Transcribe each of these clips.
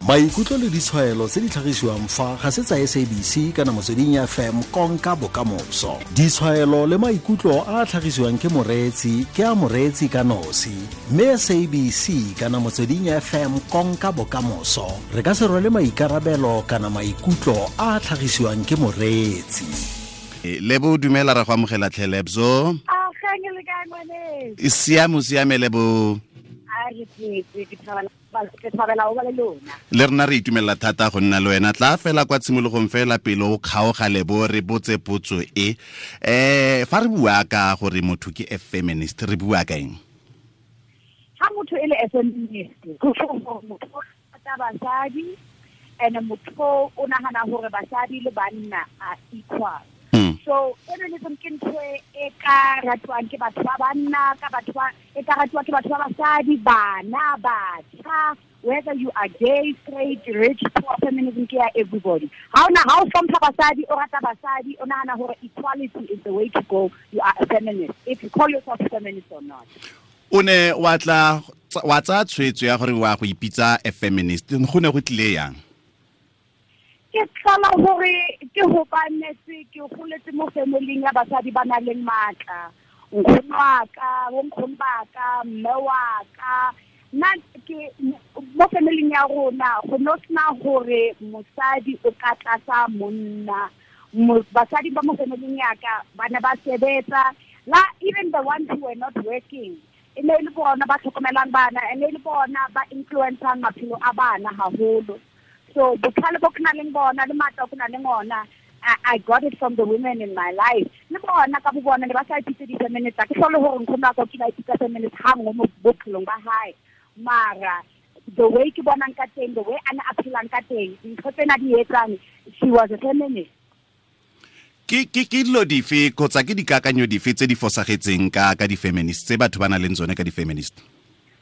Maikutlo le ditshwaelo tse di tlhagisiwang fa ga se tsa SABC kana Motsweding FM konka bokamoso. Ditshwaelo le maikutlo a a tlhagisiwang ke moreetsi ke a moreetsi ka nosi, mme SABC kana Motsweding FM konka bokamoso re ka se rwale maikarabelo kana maikutlo a a tlhagisiwang ke moreetsi. Lebo, dumela, ra go amogela tlhe, Lebso. E siame, o siame, Lebo? Le rena re itumelela thata go nna le wena. Tla fela kwa tshimologong fela, pele o kgaoga, Lebo, re botse potso e fa re bua ka gore motho ke a feminist, re bua ka eng? Ha motho e le a feminist, go motho rata basadi and motho o nagana gore basadi le banna are equal. So feminism ke ntho e ka ratiwang ke batho ba banna, ka batho ba e ka ratiwa ke batho ba basadi, bana, batjha, whether you are gay, straight, rich, poor, feminism ke ya everybody. Ha ona ha o hlompha basadi, o rata basadi, o nahana hore equality is the way to go, you are a feminist, if you call yourself a feminist or not. O ne wa tla wa tsaya tshwetso ya gore wa go ipitsa a feminist, go ne go tlile yang? Ke tlhola gore ke hobanetse ke goletse mo familing ya basadi ba nang le matla. Nkgono wa ka, bonkgono ba ka, mme wa ka, nna ke mo familing ya rona go no sena gore mosadi o ka tlasa monna. Basadi ba mo familing ya ka ba ne ba sebetsa, la even the ones who were not working, e ne e le bona ba tlhokomelang bana, e ne e le bona ba influencang maphelo a bana haholo. So botlhale bo ke nang le bona le matla ke nang le ona, I got it from the women in my life. Le bona ka bo bona ne ba sa ipitse di-feminist. Ke hlole hore nkgono wa ka o kile a ipitsa feminist ha nngwe mo bophelong ba hae, mara the way ke bonang ka teng, the way a ne a phelang ka teng, ntho tsena di etsang, she was a feminist. Ke dilo dife kgotsa ke dikakanyo dife tse di fosagetseng ka di-feminist tse batho ba nang le tsone ka di-feminist?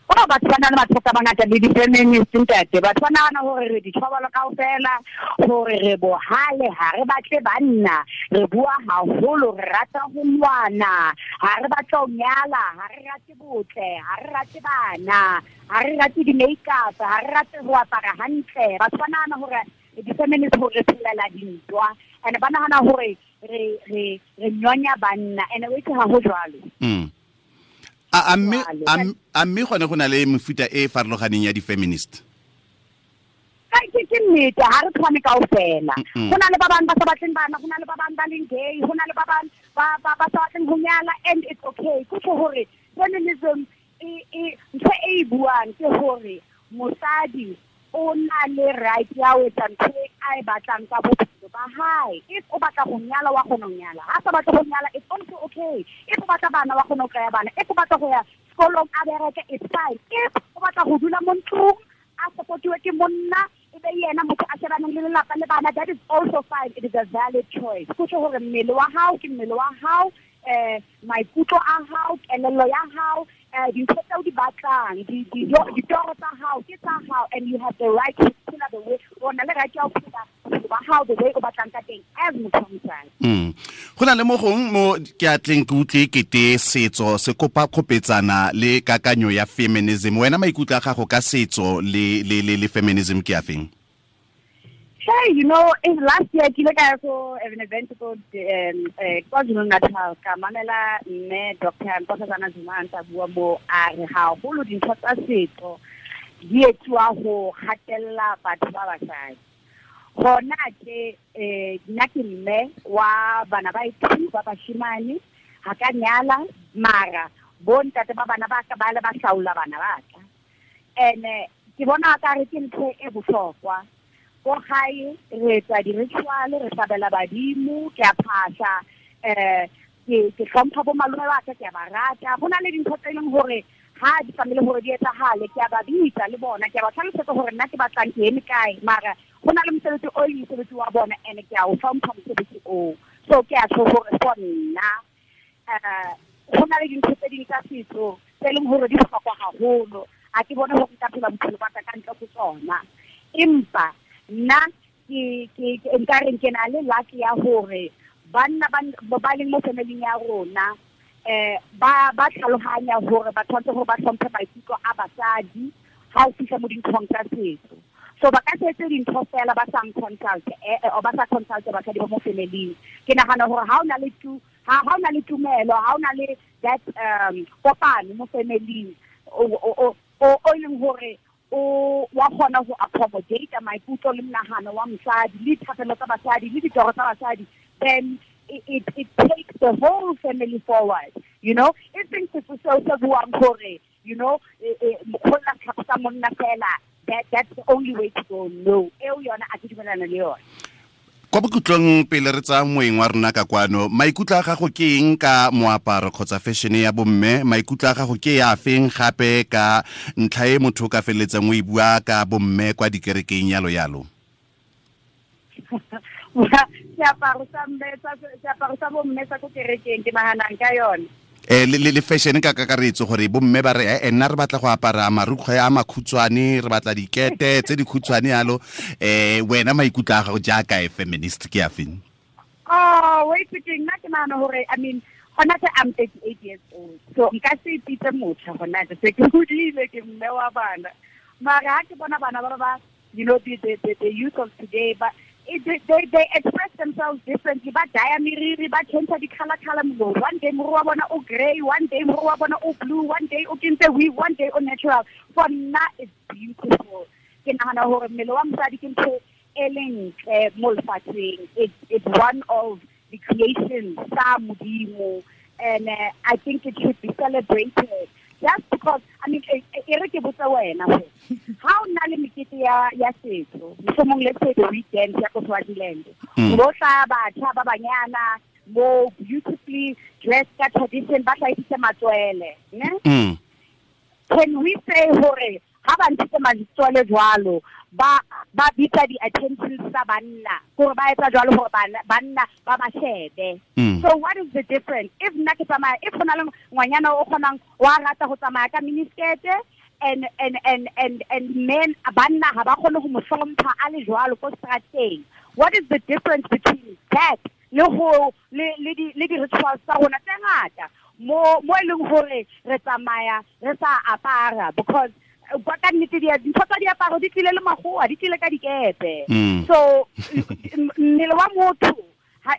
O batho ba na le mathata a mangata le di-feminist, ntate. Batho ba nagana gore re dithobolo kaofela, gore re bohale, ha re batle banna, re bua haholo, re rata ho lwana, ha re batle ho nyala, ha re rate botle, ha re rate bana, ha re rate di-makeup, ha re rate ho apara hantle. Batho ba nagana gore di-feminist gore re phelela dintwa, and ba nagana gore re nyonya banna, and o itse ha ho jwalo. A mme gone go na le mefuta e e farologaneng ya di-feminist? Ke nnete, ha re tshwane kaofela. Go na le ba bang ba sa batleng bana, go na le ba bang ba leng gay, go na le ba bang ba sa batleng go nyala, and it's okay. Ke gore feminism e ntho e e buang ke gore mosadi o na le right ya ho etsa ntho e a e batlang ka bophelo ba hae. If o batla go nyala, wa kgona ho nyala. Ha sa batle go nyala, it's also okay. If o batla bana, wa kgona ho kry-a bana. If o batla go ya sekolong, a bereke, it's fine. If o batla go dula mo ntlong, a supportiwe ke monna, e be yena motho a shebaneng le lelapa le bana, that is also fine. It is a valid choice. Go tjho hore mmele wa hao ke mmele wa hao, maikutlo a hao, kelello ya hao, dintho tseo di batlang, ditoro tsa hao ke tsa hao, and you have the right to phela the way o na le right ya ho phela bophelo ba hao the way o batlang ka teng as motho wa mosadi. Go na le mo gong mo ke atleng ke utlwe kete setso se kopa kgopetsana le kakanyo ya feminism. Wena maikutlo a gago ka setso le feminism ke a feng? Hey, in last year, ke ile ka ya ko an event ko KwaZulu Natal, ka mamela mme Dr. Nkosazana Zuma a ntse a bua mo, a re haholo dintho tsa setso di etsuwa ho hatella batho ba basadi. Hona ke nna ke mme wa bana ba two ba bashimane, ha ka nyala, mara bo ntate ba bana ba ka ba le ba hlaola bana ba ka. And ke bona ka re ke ntho e bohlokwa. Ko gae re etsa di-ritual, re hlabela badimo, ke a phahla, ke hlompha bo malome ba ka, ke a ba rata. Go na le dintho tse e leng gore ha di tlamehile hore di etsahale, ke a ba bitsa le bona, ke a ba tlhalosetsa hore nna ke batlang, ke eme kae, mara go na le mosebetsi o e leng mosebetsi wa bona, and ke a o hlompha mosebetsi oo. So ke a tjho hore for nna go na le dintho tse ding tsa setso tse leng hore di bohlokwa haholo, ha ke bone hore nka phela bophelo ba ka ka ntle ho tsona. Empa nna ke nka reng, ke na le luck ya hore banna ba leng mo familing ya rona ba tlhalohanya hore ba tshwanetse hore ba hlomphe maikutlo a basadi ha o fihla mo dinthong tsa setso. So ba ka se etse dintho fela ba sa consult or ba sa consult basadi ba mo family. Ke nagana gore ha o na le tu ha o na le tumelo, ha o na le that kopano mo family o leng hore o wa kgona go accommodate maikutlo le monagano wa mosadi le dithapelo tsa basadi le ditoro tsa basadi, then it takes the whole family forward, you know. E seng setso seo se buang gore, you know, mokgona tlhako monna fela, that's the only way to go. No, eo yona a ke dumelana le yona. Kwa bokhutlong pele re tsaya moeng wa rona ka kwano, maikutlo a gago ke eng ka moaparo kgotsa fashion ya bomme? Maikutlo a gago ke ya feng gape ka ntlha e motho o ka feleletsang o e bua ka bomme kwa dikerekeng yalo yalo? Seaparo sa bomme sa ko kerekeng ke naganang ka yone. Le fashion ka kakaretso gore bomme ba re nna re batla go apara marukgwe a makhutshwane, re batla dikete tse dikhutshwane yalo. Wena maikutlo a gago jaaka e feminist ke a feng? Oh, wait, ke nna ke nagana gore, I mean, gona se I'm 38 years old, so nka se ipitse motjha gona se ke hodile, ke mme wa bana. Mara ha ke bona bana ba ba, you know, the youth of today, but they express themselves differently. Ba dye meriri, ba change di color color. One day moriri wa bona o grey, one day moriri wa bona o blue, one day o kentse weave, one day o natural. For nna it's beautiful. Ke nagana gore mmele wa mosadi ke ntho e leng ntle mo lefatsheng. It's one of the creations tsa Modimo, and I think it should be celebrated. Just because, I mean, e re ke botse wena gore ha o na le mekete ya setso, mohlomong let's say the weekend ya ko Swaziland, bo tla batjha ba banyana mo beautifully dressed ka tradition, ba hlahisitse matswele, ne? Can we say hore ha ba ntshitse matswele jwalo, ba bitsa di-attention tsa banna, gore ba etsa jwalo gore banna ba ba shebe? So what is the difference? If nna ke tsamaya, if go na le ngwanyana o kgonang wa rata go tsamaya ka miniskirt, and men banna ha ba kgone go mo hlompha a le jwalo ko strateng, what is the difference between that le go le di-rituals tsa rona tse ngata mo e leng gore re tsamaya re sa apara? Because ka nnete dintho tsa diaparo di tlile le magoa, di tlile ka dikepe. So mmele wa motho ha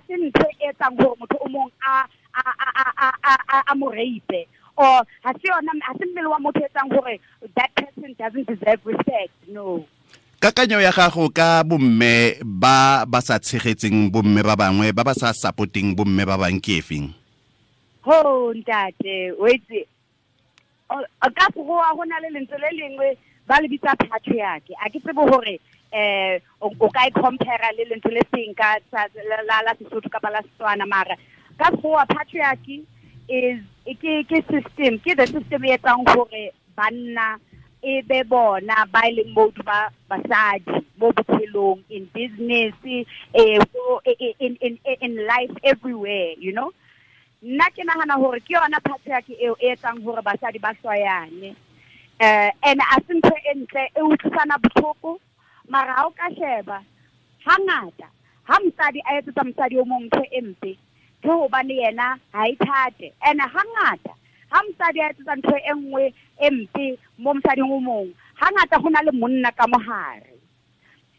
se ntho e etsang gore motho o mong a mo rape, or ha se yona, ha se mmele wa motho etsang gore that person doesn't deserve respect. No. Kakanyo ya gago ka bomme ba ba sa tshegetseng bomme ba bangwe, ba ba sa supporting bomme ba bang ke efeng? Ho ntate, wait, ka go go na le lentswe le lengwe ba le bitsa patriarchy. A ke tsebe hore o ka e compare le lentswe le seng ka la Sesotho kapa la Setswana, mara ka go patriarchy is ke system, ke the system e etsang hore banna e be bona ba e leng mode ba basadi mo bophelong, in business, in life, everywhere, you know. Nna ke nagana gore ke yona patriarchy eo e etsang gore basadi ba hloyane. And a se ntho e ntle, e utlwisana botlhoko, mara ha o ka sheba hangata ha mosadi a etsetsa mosadi o mong ntho e mpe, ke hobane yena ha e thate. And hangata ha mosadi a etsetsa ntho e nngwe e mpe mo mosading o mong, hangata go na le monna ka mohare.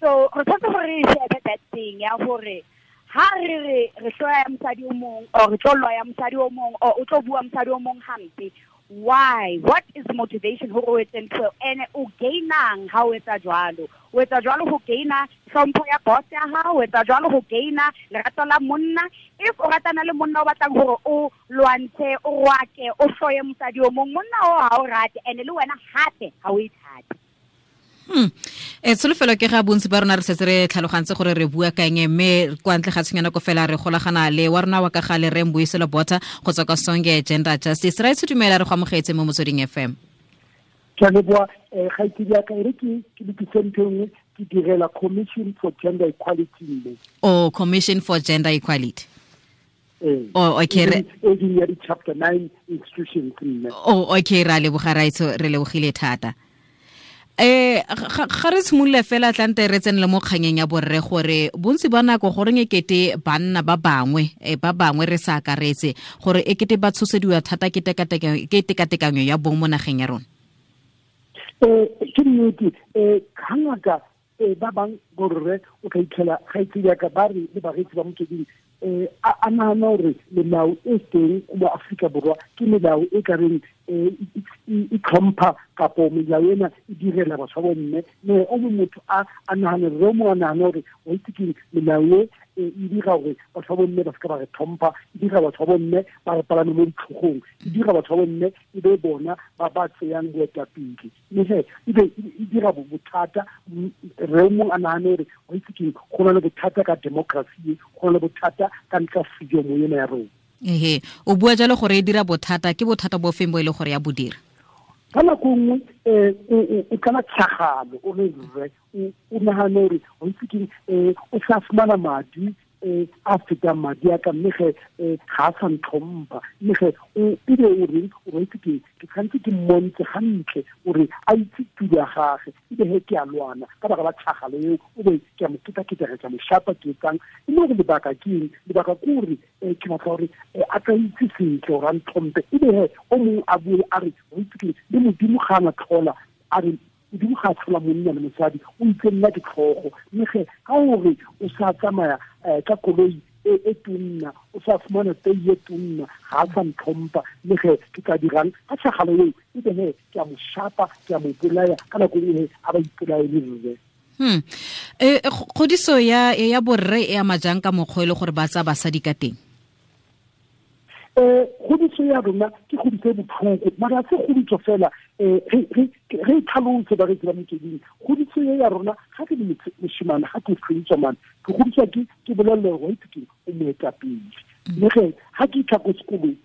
So re tshwanetse gore re shebe that thing ya gore ha re re hloya mosadi o mong, or re tlo loya mosadi o mong, or o tlo bua mosadi o mong hampe, why? What is the motivation hore o etse ntho ene? O gainang ha o etsa jwalo? O etsa jwalo ho gaina hlompho ya boss ya hao, o etsa jwalo ho gaina lerato la monna. If o ratana le monna o batlang hore o lwantshe, o rwake, o hloye mosadi o mong, monna o ha o rate, ene le wena hape ha o ithate. Tsholofelo ke ga bontsi ba rona re setse re tlhalogantse gore re bua ka eng, mme kwa ntle ga tshwenyana ko fela re golagana le wa rona wa ka gale re Mbuyiselo Botha go tswa kwa Sonke Gender Justice. Ra itshudumela re go amogetse mo Motsweding FM. Ke a leboha, kgaitsedi ya ka, e re ke lokise ntho e nngwe, ke direla Commission for Gender Equality mme. Oh, Commission for Gender Equality. Oh, okay. E ding ya di-chapter 9 institutions mme. Oh, okay, ra leboga raitso, re lebogile thata. Ga re simolola fela tlante re tsenele mo kganyeng ya borre gore bontsi ba nako goreng ekete banna ba bangwe ba bangwe re sa akaretse gore ekete ba tshosediwa thata ke tekatekanyo ya bong mo nageng ya rona. Ke nnete hangata ba bang borre o ka itlhela ga itse jaaka ba re le bareetsi ba Motsweding a nahana gore melao e teng mo Aforika Borwa ke melao e ka reng e tlhompha kapo melao ena e direla batho ba bomme. Mme o mongwe motho a nahane rre o mongwe a nahane gore wa itse keng melao e e dira gore batho ba bomme ba seka ba re tlhompha, e dira batho ba bomme ba re palame mo ditlhogong, e dira batho ba bomme e be bona ba ba tseyang boetapele. Mme he e be e dira bothata re mongwe a nahane gore wa itse keng go na le bothata ka democracy, go na le bothata ka ntlha freedom ena ya rona. Ehe, o bua jalo gore e dira bothata, ke bothata bo feng bo e le gore ya bo dira? Ka nako nngwe o tlala tshagalo o le rre o nahane gore wa itse keng o sa fumana madi a fetang madi a ka, mme ge ga a sa ntlhompha, mme ge o ebe o reng o itse keng ke tshwanetse ke mmontshe gantle gore a itse tulo ya gage, ebe he ke a lwana ka baka la tshagalo eo, o be ke a mo ketaketega, ke a mo shapa, ke etsang. E le gore lebaka ke eng? Lebaka ke gore ke batla gore a tla itse sentle gore a ntlhomphe. Ebe he o mongwe a bue a re o itse keng le Modimo ga a na tlhola, a re Modimo ga a tlhola monna le mosadi, o itse nna ke tlhogo. Mme ge ka gore o sa tsamaya ka koloi e tonna, o sa fumana tei e tonna, ga a sa ntlhompha, mme ge ke tla dirang ka tshagalo eo, ebe he ke a mo shapa, ke a mo bolaya, ka nako e a ba ipolaye le rre. Kgodiso ya borre e ama jang ka mokgwa e le gore ba tsaya basadi ka teng? Kgodiso ya rona ke kgodiso e botlhoko, mara se kgodiso fela re tlhalose bareetsi ba Motsweding. Kgodiso e ya rona ga ke le moshimane, ga ke kgodiswa mane, ke kgodiswa ke bolelelwa gore wa itse keng o moetapele. Mme ge ga ke itlha ko sekolong,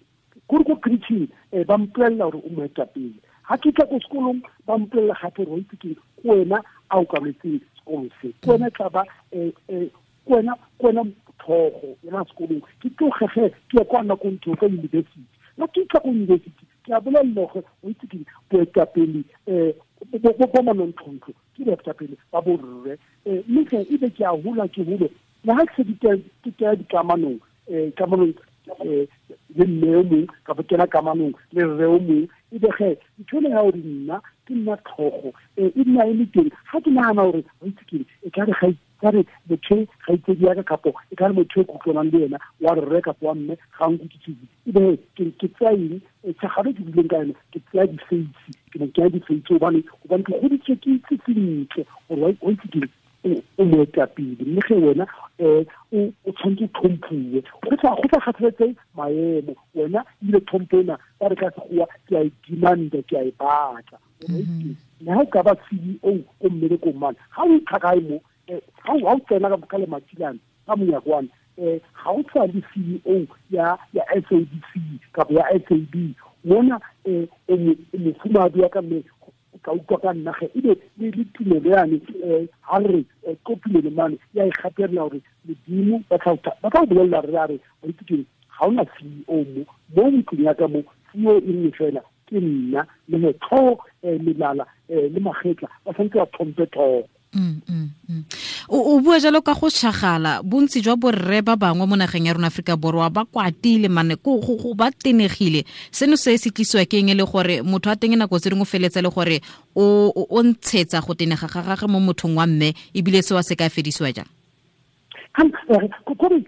kore ko preaching ba mpolelela gore o moetapele. Ga ke itlha ko sekolong ba mpolelela gape gore wa itse keng ke wena a okametseng sekolo se, ke wena tla ba ke wena tlhogo yona sekolong. Ke tlogege ke ye kwa nakong ke kwa university. Nna ke itlha ko university ke a bolelela gore o itse keng boetapele bo manontlhontlo ke boetapele ba borre. Mme ge ebe ke a hola ke hole le ga ke se ke kena dikamanong kamanong le mme o mongwe kapo kena kamanong le rre o mongwe, ebe ge ntho ena ya gore nna ke nna tlhogo e nna e le teng. Ga ke nagana gore o itse keng e ka re ga ka re motho ga itsedi ya ka kapo e ka re motho e kutlwanang le ena wa rre kapo wa mme ga nkutlwisise, ebe ke tsaya eng tshagalo ke buileng ka yone, ke tsaya difeisi, ke mo kenya difeisi gobane ke goditswe ke itse sentle gore wa itse keng o moetapele. Mme ge wena o tshwanetse o tlhomphuwe, go sa kgathaletse maemo, wena ebile tlhompho ena ba re ka Sekgowa ke a e demanda, ke a e batla. Le ha o ka ba CEO ko mmerekong mane, ga o itlha kae mo ga o tsena ka lematilane ka monyakwane, ga o tshwana le CEO ya SABC kapa ya SAB mona, o mofumahadi wa ka mme o ka utlwa ka nna ge ebe le tumelo yane ha re ko tumelo mane ya e gatelela gore Modimo ba tla o bolelela re a re wa itse keng ga ona CEO mo ntlong ya ka mo, CEO e nngwe fela ke nna, le he tlhogo melala le magetla ba tshwanetse ba tlhompe tlhogo. O bua jalo ka go tšhagala, bontsi jwa borre ba bangwe mo nageng ya rona Aforika Borwa ba kwatile mane go ba tenegile. Seno se se tlisiwa ke eng e le gore motho a teng nako tse dingwe feletse le gore o ntshetsa go tenega ga gagwe mo mothong wa mme, ebile seo se ka fedisiwa jang? Ka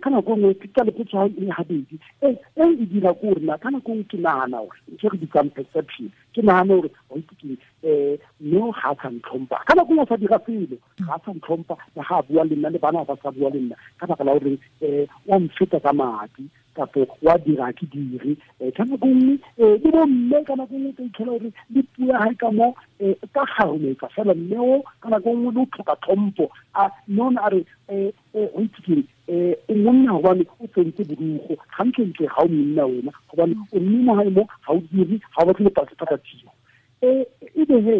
nako nngwe ke tsa lepotso e gabedi e e dira ko rena ka nako nngwe ke nagana gore ntho re bitsang perception, ke nagana gore wa itse keng mme ga a sa ntlhompha, ka nako nngwe a sa dira selo, ga a sa ntlhompha, le ga a bua le nna le bana ba sa bua le nna ka baka la gore wa mfeta ka madi kapo wa dira ke dire. Ka nako nngwe le bomme ka nako nngwe ka itlhela gore le puo ya gae ka mo ka garometsa fela mme o ka nako nngwe le o tlhoka tlhompho, a mme o ne a re o itse keng o monna gobane o tsentse borugo gantlentle, ga o monna wena gobane o mme mo gae mo ga o dire, ga o batle le patatiro. Ebe he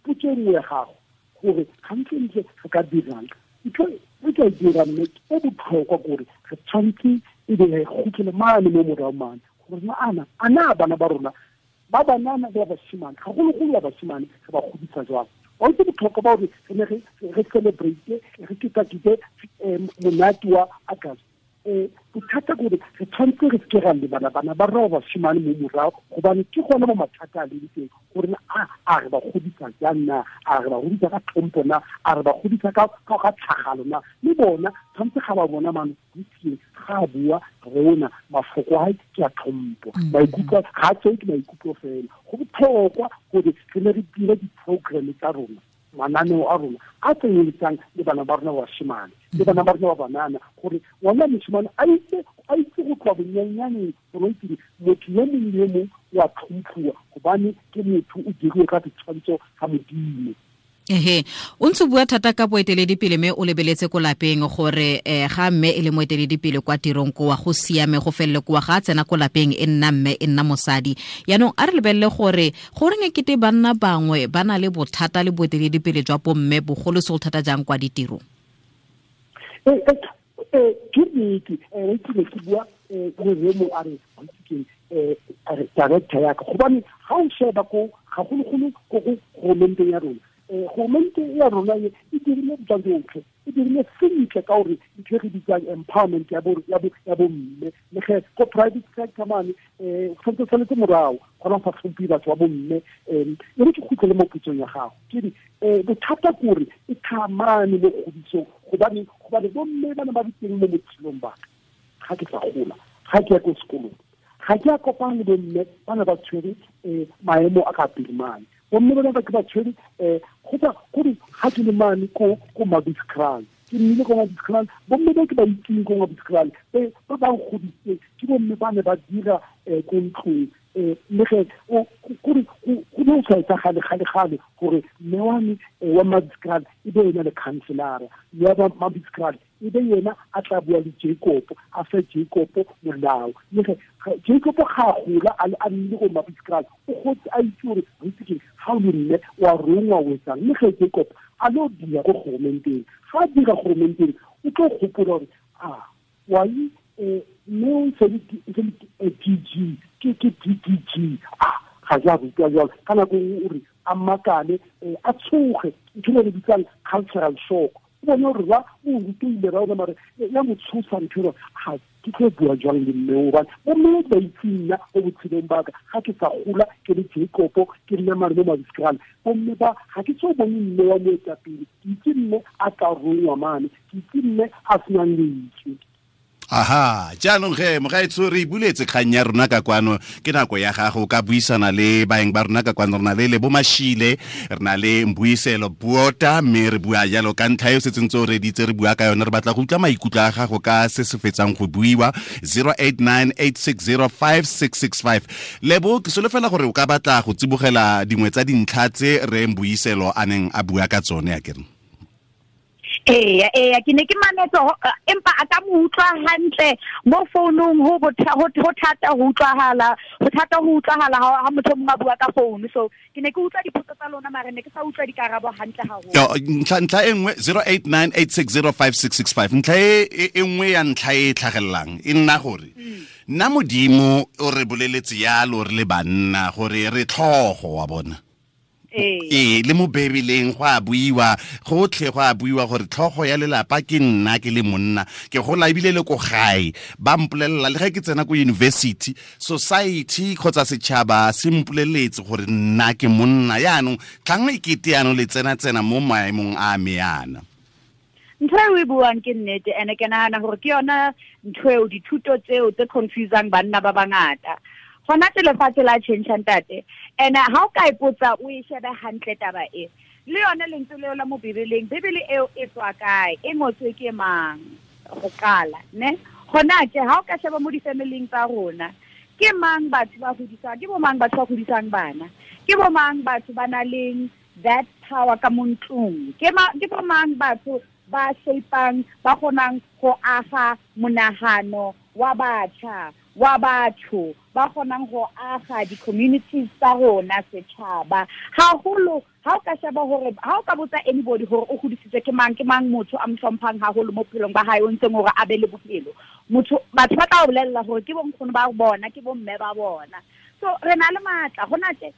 potso e nngwe ya gago gore gantlentle re ka dirang, ntho e ka e dirang mme e botlhokwa kore re tshwanetse ebe re kgutlele mane mo morago mane gore a na bana ba rona ba banana le ba bashimane, gagologolo ba bashimane re ba godisa jwang. Wa itse botlhokwa ba gore re ne re celebrate re ketakete monate wa August. Bothata ke gore re tshwanetse re seke ra lebala bana ba rona ba bashimane mo morago, gobane ke gone mo mathata a leng teng, gore a re ba godisa jang na, a re ba godisa ka tlhompho na, a re ba godisa ka tlhagalo na. Le bona tshwanetse ga ba bona mano ga a bua rona mafoko a ke a tlhompho, maikutlo ga a tseo ke maikutlo fela. Go botlhokwa gore re ne re dire di-programme tsa rona, mananeo a rona a tsenyeletsang le bana ba rona ba bashimane le bana ba rona ba banana, gore ngwana moshimane a itse go tloa bonnyanyaneng gore itse motho yo mongwe le yo mongwe wa tlhomphiwa, gobane ke motho o diriwe ka setshwantsho sa Modimo. Ehe, o ntse bua thata ka boeteledipele mme o lebeletse ko lapeng gore ga mme e le moeteledipele kwa tirong kowa go siame go felele kowa, ga a tsena ko lapeng e nna mme e nna mosadi. Yaanong a re lebelele gore goreng e kete banna bangwe ba na le bothata le boeteledipele jwa bomme, bogolosegolo thata jang kwa ditirong? Ke nnete, ke ne ke bua le Remo a re director yaka, gobane ga o sheba ko gagologolo ko go goromente ya rona, goromente ya rona e dirile tsa tsotlhe, e dirile sentle ka gore ntho e re bitsang empowerment ya bomme. Le ge ko private sector mane tshwanetse tshwanetse morago gona go sa tlhomphe batho ba bomme. E re ke kgutlele mo potsong ya gago, ke re bothata ke gore e thamane mo kgodisong, gobane bomme ba ne ba le teng mo botshelong ba ka, ga ke sa gola, ga ke ya ko sekolong, ga ke a kopana le bomme ba ne ba tshwere maemo a ka pele mane. Bomme ba ke ba tshwere kgotsa gore ga ke le mane ko Mabitskral, ke nnile ko Mabitskral, bomme ba ke ba itseng ko Mabitskral ba ba nkgodisitseng ke bomme ba ne ba dira ko ntlong. Le ge gore go ne o sa etsagale gale-gale gore mme wa me wa Mabitskral e be ena le councilora, mme wa Mabitskral e be yena a tla bua le Jacob, a fe Jacob molao. Le ge Jacob ga a gola a nnile go Mabitskral, o gotse a itse gore itse ke ga o le mme wa rongwa o etsang. Le ge Jacob a lo dira ko goromenteng, ga a dira goromenteng o tlo gopola gore a wai mme o se le DG, ke DDG, a ga ja rutwa jalo. Ka nako nngwe o re a makale, a tshoge, ntho e re bitsang cultural shock. O bone gore ba o rutile ra ona mare ya mo tshosa ntho eo, ga ke tlo bua jwang le mme o, bane bomme ba itse nna mo botshelong ba ka, ga ke sa gola ke le Jacob ke nna mare mo Mabitskral, bomme ba ga ke so bone mme wa moetapele, ke itse mme a tla rongwa mane, ke itse mme a senang lentswe. Aha, jaanong ge mogaetsho re buletse kgang ya rona ka kwano, ke nako ya gago ka buisana le baeng ba rona ka kwano. Re na le Lebo Mashile, re na le Mbuyiselo Bota, mme re bua jalo ka ntlha e o setseng tse o reditse re bua ka yone. Re batla go utlwa maikutlo a gago ka se se fetsang go buiwa. 0898605665. Lebo, ke solofela gore o ka batla go tsibogela dingwe tsa dintlha tse re Mbuyiselo a neng a bua ka tsone, a kere? Ee, ke ne ke mametse, empa a ka mo utlwa hantle mo founung, ho thata ho utlwahala, ho thata ho utlwahala ha motho mongwe a bua ka founu. So ke ne ke utlwa dipotso tsa lona, mare ne ke sa utlwa dikarabo hantle haholo. Ntlha e nngwe 0898605665, ntlha e nngwe ya ntlha e tlhagelelang e nna gore nna Modimo o re boleletse yalo re le banna gore re tlhogo wa bona. Ee, le mo Bebeleng go a buiwa, gotlhe go a buiwa gore tlhogo ya lelapa ke nna ke le monna, ke gola ebile le ko gae ba mpolelela, le ge ke tsena ko university, society kgotsa setšhaba se mpoleletse gore nna ke monna. Yaanong tlhang e kete yaanong le tsena-tsena mo maemong a me yana. Ntho e o e buang ke nnete, ene ke nahana gore ke yona ntho eo, dithuto tseo tse confusang banna ba bangata. Gona tse lefatshe la tjhentjha ntate, ene ha o ka ipotsa o e shebe hantle taba e, le yone lentswe leo la mo Bibeleng, Bibele eo e tswa kae, e ngotswe ke mang go qala, ne? Gona tje ha o ka sheba mo di-family-ing tsa rona, ke mang batho ba hodisang, ke bo mang batho ba hodisang bana, ke bo mang batho ba nang le that power ka mo ntlong, ke bo mang batho ba shape-ang, ba kgonang go aga monahano wa batjha, wa batho, ba kgonang go aga di-communities tsa rona, setjhaba. Haholo ha o ka sheba hore, ha o ka botsa anybody hore o hodisitswe ke mang, ke mang motho a mo hlomphang haholo mo bophelong ba hae, o ntseng hore a be le bophelo, motho, batho ba tla o bolella hore ke bonkgono ba bona, ke bomme ba bona. So re na le matla hona tje.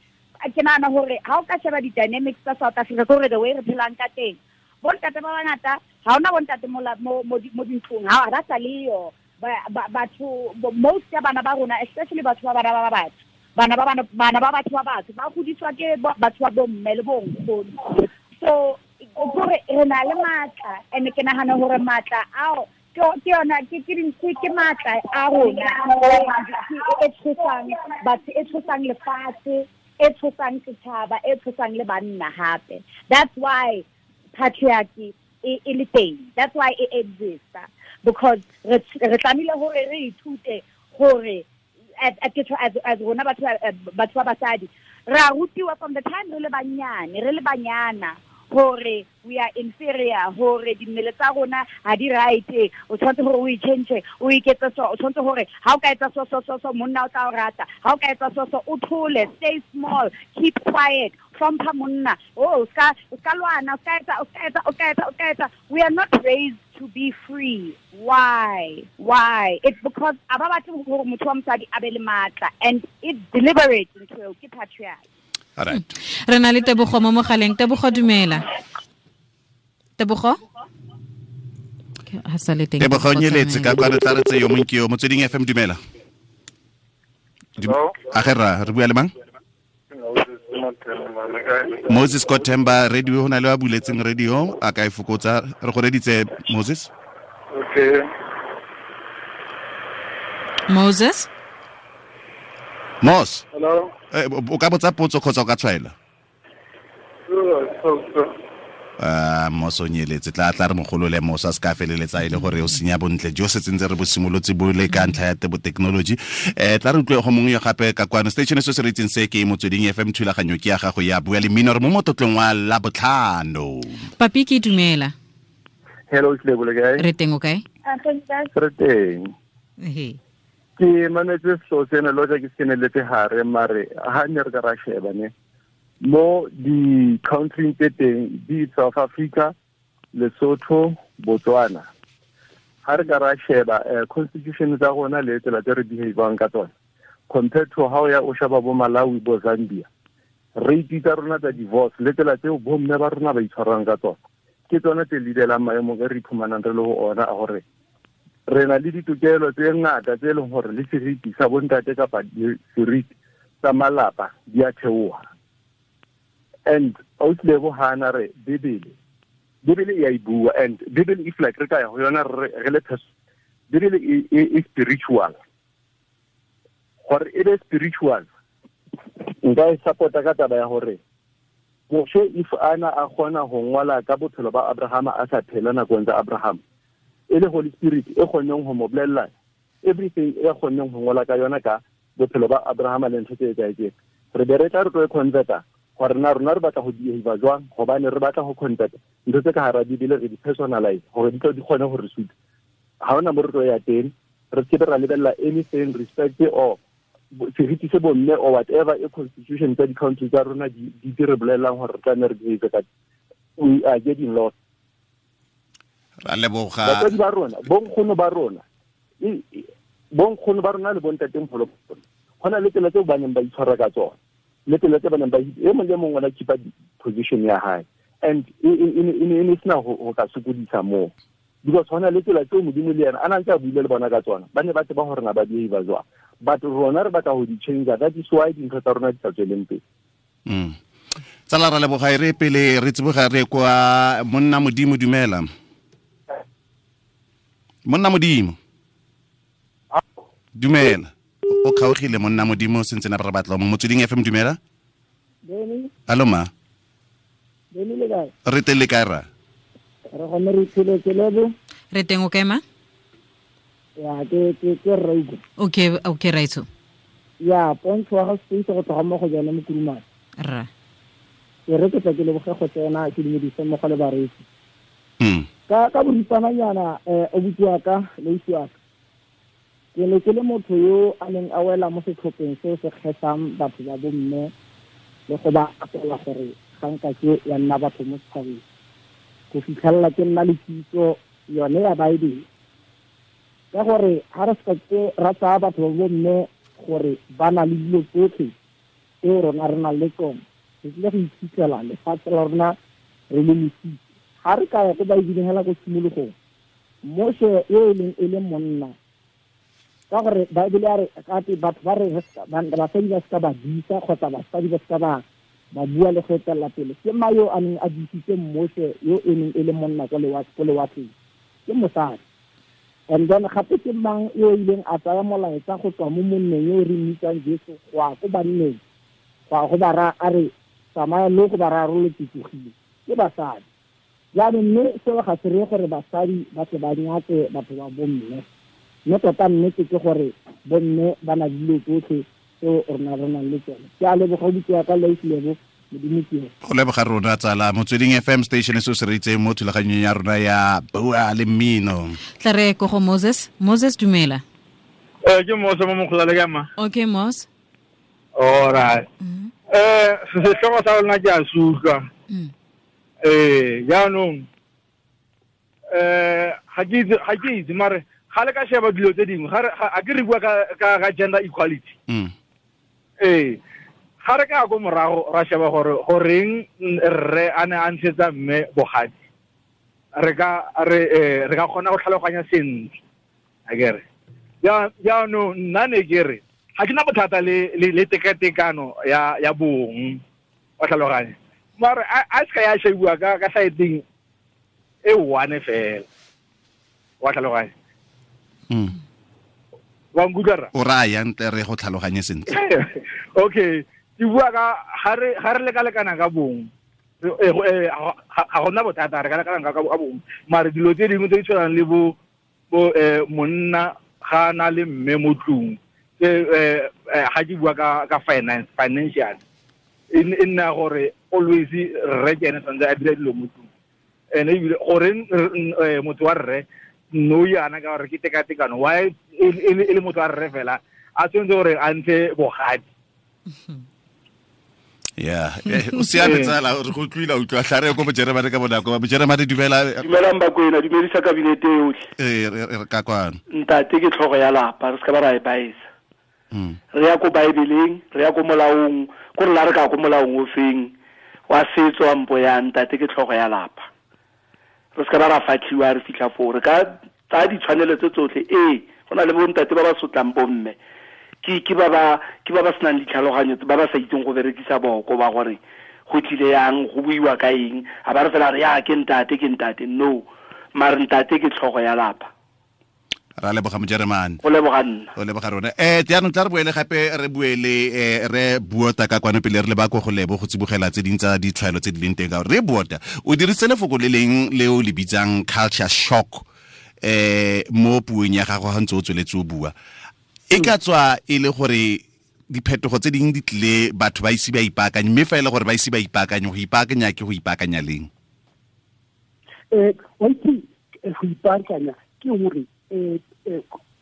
Ke nahana hore ha o ka sheba di-dynamics tsa South Africa, ke hore the way re phelang ka teng, bontate ba bangata ha hona bontate mo dintlong, ha ba sa leyo. Batho most ya bana ba rona, especially batho ba bana ba batho, bana ba batho ba batho ba godiswa ke batho ba bomme le bonkgono. So gore re na le matla, and ke nagana gore matla ao ke yona ke matla a rona e tshosang batho, e tshosang lefatshe, e tshosang setšhaba, e tshosang le banna hape. That's why patriarchy e le teng. That's why it exists, because re tlamehile hore re ithute hore as rona batho ba basadi re a rutiwa from the time re le banyane, re le banyana, hore we are inferior, hore dimmele tsa rona ha di right, o tshwanetse hore o itjhentjhe, o iketse so, o tshwanetse hore ha o ka etsa so so so so monna o tla o rata, ha o ka etsa so so o thole, stay small, keep quiet, hlompha monna, oh o ska lwana, o ska etsa. We are not raised to be free. Why? It's because a ba batle hore motho wa mosadi a be le matla, and it's deliberate ntho ke patriarchy. All right. Re na le Tebogo mo mogaleng. Tebogo, dumela. Tebogo? Ha sa le teng. Tebogo nyeletse ka kwa re tla re tse yo mong ke yo Motsweding FM, dumela. A ge ra re bua le mang? Moses Kotemba, radio ho na le ba buletseng radio, a ka e fokotsa. Re go reditse Moses. Okay. Moses? Mos. Hello. O ka botsa potso kgotsa o ka tshwaela? Mos o nyeletse, tla re mogolole Mos a se ka feleletsa e le gore o senya bontle jo se tsentse re bo simolotse bo le ka ntlha ya tebo technology. Tla re utlwe go mongwe yo gape ka kwano. Station se se re itseng se ke Motsweding FM, thulaganyo ke ya gago ya Bua le Mmino, re mo motlotlong wa Labotlhano. Papi, ke dumela. Hello, Lebo, le kae? Re teng, o kae? Re teng. Ehe. Ke mametse selo sena le hoja ke se keneletse hare, mare ha ne re ka ra sheba ne mo di-country tse teng di South Africa, Lesotho, Botswana, ha re ka ra sheba constitution tsa rona le tsela tse re behavang ka tsona compared to how ya o sheba bo Malawi, bo Zambia, rate tsa rona tsa divorce le tsela tseo bomme ba rona ba itshwarang ka tsona ke tsona tse leadelang maemong e re iphumanang re le ho ona a hore re na le ditokelo tse ngata tse leng hore le seriti sa bontate kapa seriti sa malapa di a theoha. And autlebo hana re Bibele e a e bua, and Bibele if like re ka ya ho yona re le Bibele e spiritual. Hore e be spiritual, nka e support-a ka taba ya hore Moshe if ana a kgona ho ngola ka bophelo ba Abrahama a sa phela nakong tsa Abraham, e le Holy Spirit e kgonneng ho mo bolella everything e kgonneng ho ngola ka yona ka bophelo ba Abrahama le ntho tse etsahetseng. Re be re tla re tlo e converta gore na rona re batla go behave jwang, gobane re batla go converta ntho tse ka hara Bibele re di personalize gore di tlo di kgone go re suta. Ha hona mo re tlo ya teng, re se be ra lebella anything respect or seriti se bomme or whatever e constitution tsa di-country tsa rona di re bolellang gore re tla nne re behave ka. We are getting lost. Ra leboga. Batswadi ba rona, bonkgono ba rona, bonkgono ba rona le bontatemogolo ba rona, go na le tsela tseo ba neng ba itshwara ka tsona, le tsela tse ba neng ba e mong le mongwe o na keep-a position ya hae, and e ne sena ho ka sokodisa moo, because go na le tsela tseo Modimo le yena a na ntse a buile le bona ka tsona, ba ne ba tseba gore na ba behave jwang, but rona re batla go di change. That is why dintho tsa rona di sa tsweleng pele. Tsala, ra leboga. E re pele re tsiboga re kwa monna Modimo, dumela. Monna Modimo, dumela. O kgaogile monna Modimo, sentse na re batla mo Motsweding FM, dumela. Allo ma. Re teng le kae ra? Re gone re tsheletse Lebo. Re teng, o kae ma? Ya ke Rauko. Okay, Raitso. Ya pontsho wa ga space go tloga mo go jone mo Kurumane. Ra. Ke re ke tla ke leboge go tsena ke dumedise mo go le bareetsi. Ka boripananyana o bua ka le isiwa ka. Ke ne ke le motho yo a neng a wela mo setlhopheng seo se kgethang batho ba bomme le go ba apela gore ga nka ke ya nna batho mo setšhabeng. Go fitlhelela ke nna le kitso yone ya Baebele. Ka gore ha re se ke ra tsaya batho ba bomme gore ba na le dilo tsotlhe tseo rona re nang le tsone, re tlile go iphitlhela lefatshe la rona re le lesitse. Ha re ka ya ko Baebeleng hela ko tshimologong, Moshe yo e leng e le monna Ka gore Bible ya re gate batho ba re basadi ba seka ba disa kgotsa basadi ba seka ba bua le go etelela pele. Ke ma yo a neng a disitse Moshe yo e neng e le monna ko lewatleng, ke mosadi. And then gape ke mang yo ileng a tsaya molaetsa go tswa mo monneng yo re mmitsang Jesu go ya ko banneng, go ya go ba raya a re tsamaya lo go ba raya ro le tsogile, ke basadi. Jaanong mme seo ga se reye gore basadi ba tle ba nyatse batho ba bomme, mme tota nnete ke gore bomme ba na le dilo tsotlhe tseo rona re nang le tsone. Ke a leboga botse ka Lebo, Modimo ke go leboga rona tsala. Motsweding FM station se se reitseng mo thulaganyong ya rona ya Bua le Mmino. Tla re ko go Moses. Moses, dumela. Ke Moses mo mogolale ka ma. Okay, Moses. All right. Sehlooho sa lona ke a se utlwa. Jaanong ga ke itse mare ga le ka sheba dilo tse dingwe, ga ke re bua ka gender equality. Ga re ka ko morago ra sheba gore goreng rre a ne a ntshetsa mme bogadi, re ka kgona go tlhaloganya sentle. Akere jaanong nna ne ke re ga ke na bothata le tekatekano ya bong, wa tlhaloganya, mare a se ka ya shebiwa ka saeteng e one fela, wa tlhaloganya. Wa nkutlwa rra? O raya ntle re go tlhaloganye sentle. Okay, ke bua ka ga re lekalekana ka bong, ga gona bothata, re ka lekalekana ka bong, mare dilo tse dingwe tse di tshwanang le bo monna ga na le mme mo tlung, ga ke bua ka finance, financial, e nna gore always rre ke ene tshwanetse a dira dilo mo tlung. Ene ebile goreng motho wa rre no yana ka gore ke tekatekano, why e le motho wa rre fela a tshwanetse gore a ntshe bogadi? Yeah, o siame tsala, re go utlwile, utlwa tlare ko Bojeremane ka bonako. Bojeremane, dumela. Dumelang Bakwena, dumedisa kabinete yotlhe. Re ka kwano. Ntate ke tlhogo ya lapa, re se ka ba ra e baisa. Re ya ko Bibleng, re ya ko molaong, ko re la re ka ko molaong o feng wa setso wa mpo ya ntate ke tlhogo ya lapa. Re se ka ba ra fatlhiwa re fitlha foo, re ka tsaya ditshwanelo tse tsotlhe. Go na le bontate ba ba sotlang bomme, ke ba ba senang ditlhaloganyo, ba ba sa itseng go berekisa boko ba gore go tlile yang, go buiwa ka eng, a ba re fela re ya ke ntate, no, mare ntate ke tlhogo ya lapa. Ra leboga Mojeremane. Go leboga nna. Go leboga rona. Jaanong tla re boele gape re buele re Buota ka kwano pele re le ba ko go lebo go tsibogela tse ding tsa ditshwaelo tse di leng teng ka gore re Buota o dirisitse lefoko le leng le o le bitsang culture shock mo puong ya gago ga ntse o tsweletse o bua. E ka tswa e le gore diphetogo tse dingwe di tlile batho ba ise ba ipaakanye, mme fa e le gore ba ise ba ipaakanye, go ipaakanya ke go ipaakanya leng? Wa itse go ipaakanya ke gore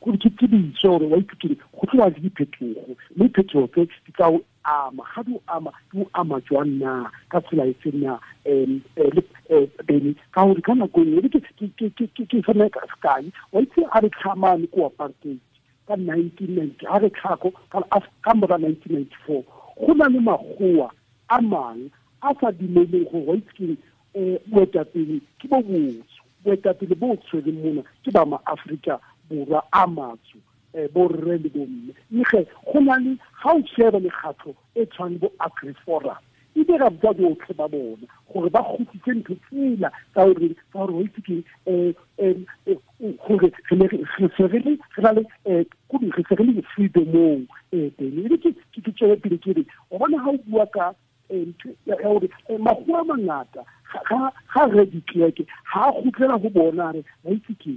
ke ditso gore wa itse go tloa le diphetogo, mme diphetogo tse di tla o ama, ga di o ama, di o ama jwang na, ka tsela e feng na, bene ka gore ka nako nngwe ke fana ka sekai, wa itse a re tlhamane ko apartheid ka 1990, a re tlhako ka mora 1994, go na le magoa a mang a sa dumeleng gore wa itse ke boetapele ke bo botso, boetapele bo tshwereng mona ke ba ma-Afrika Borwa a matsho, borre le bomme. Mme ge go na le ga o sheba mekgatlho e tshwanang bo AgriForum, e dira botsa botlhe ba bona gore ba kgutlise ntho tsela tsa gore wa itse ke gore re se re le freedomong teng. Ebe ke tswele pele ke re o bona ga o bua ka ya gore magoa a mangata ga re ditleke ga a kgutlela go bona re ba itse ke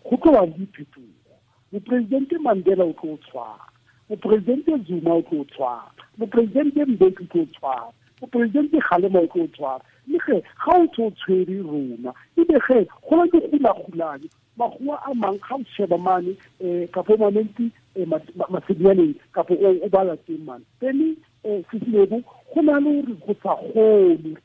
go tlo ba le diphetogo. Moporesidente Mandela o tlo tshwara, moporesidente Zuma o tlo tshwara, moporesidente Mbeki o tlo tshwara, moporesidente Kgalema o tlo tshwara. Mme ge ga o tlo tshwere rona, ebe ge go na le gulagulane magoa a mang ga o sheba mane kapo mamenti masedianeng kapo o bala teng mane pele sesilebo go na le gore go sa kgone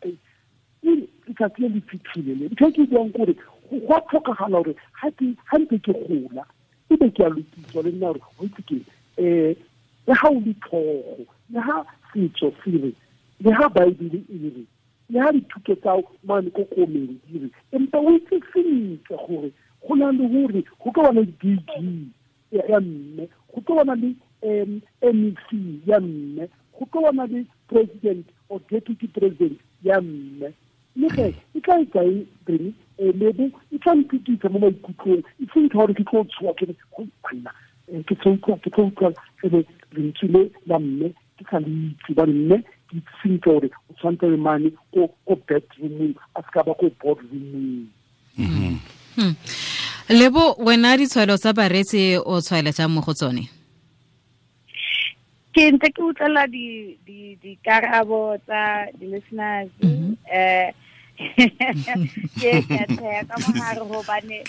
letsatsi le le fitlhile le. Ntho e ke buang kore go a tlhokagala gore ga ntse ke gola ebe ke a lokiswa le nna gore go itse ke le ga o le tlhogo, le ga setso se re, le ga Bible e re, le ga dithuto tsa mane ko komeng di re, empa o itse sentle gore go na le gore go ka bana le DG ya mme, go tlo bona le MEC ya mme, go tlo bona le president or deputy president ya mme. Le ge e tla e kae Benny, lebo e tla mpitisa mo maikutlong, e seng gore ke tlo tshoa ke go banna, ke tlo utlwa lentswe le la mme ke sa le itse, ba mme ke itse sentle gore o tshwanetse le mane ko bedroomong, a se ka ba ko boardroomong. Lebo, wena ditshwaelo tsa bareetsi o tshwaela jang mo go tsone? Ke ntse ke utlwela dikarabo tsa di-listeners, ke tsheya ka mogare gobane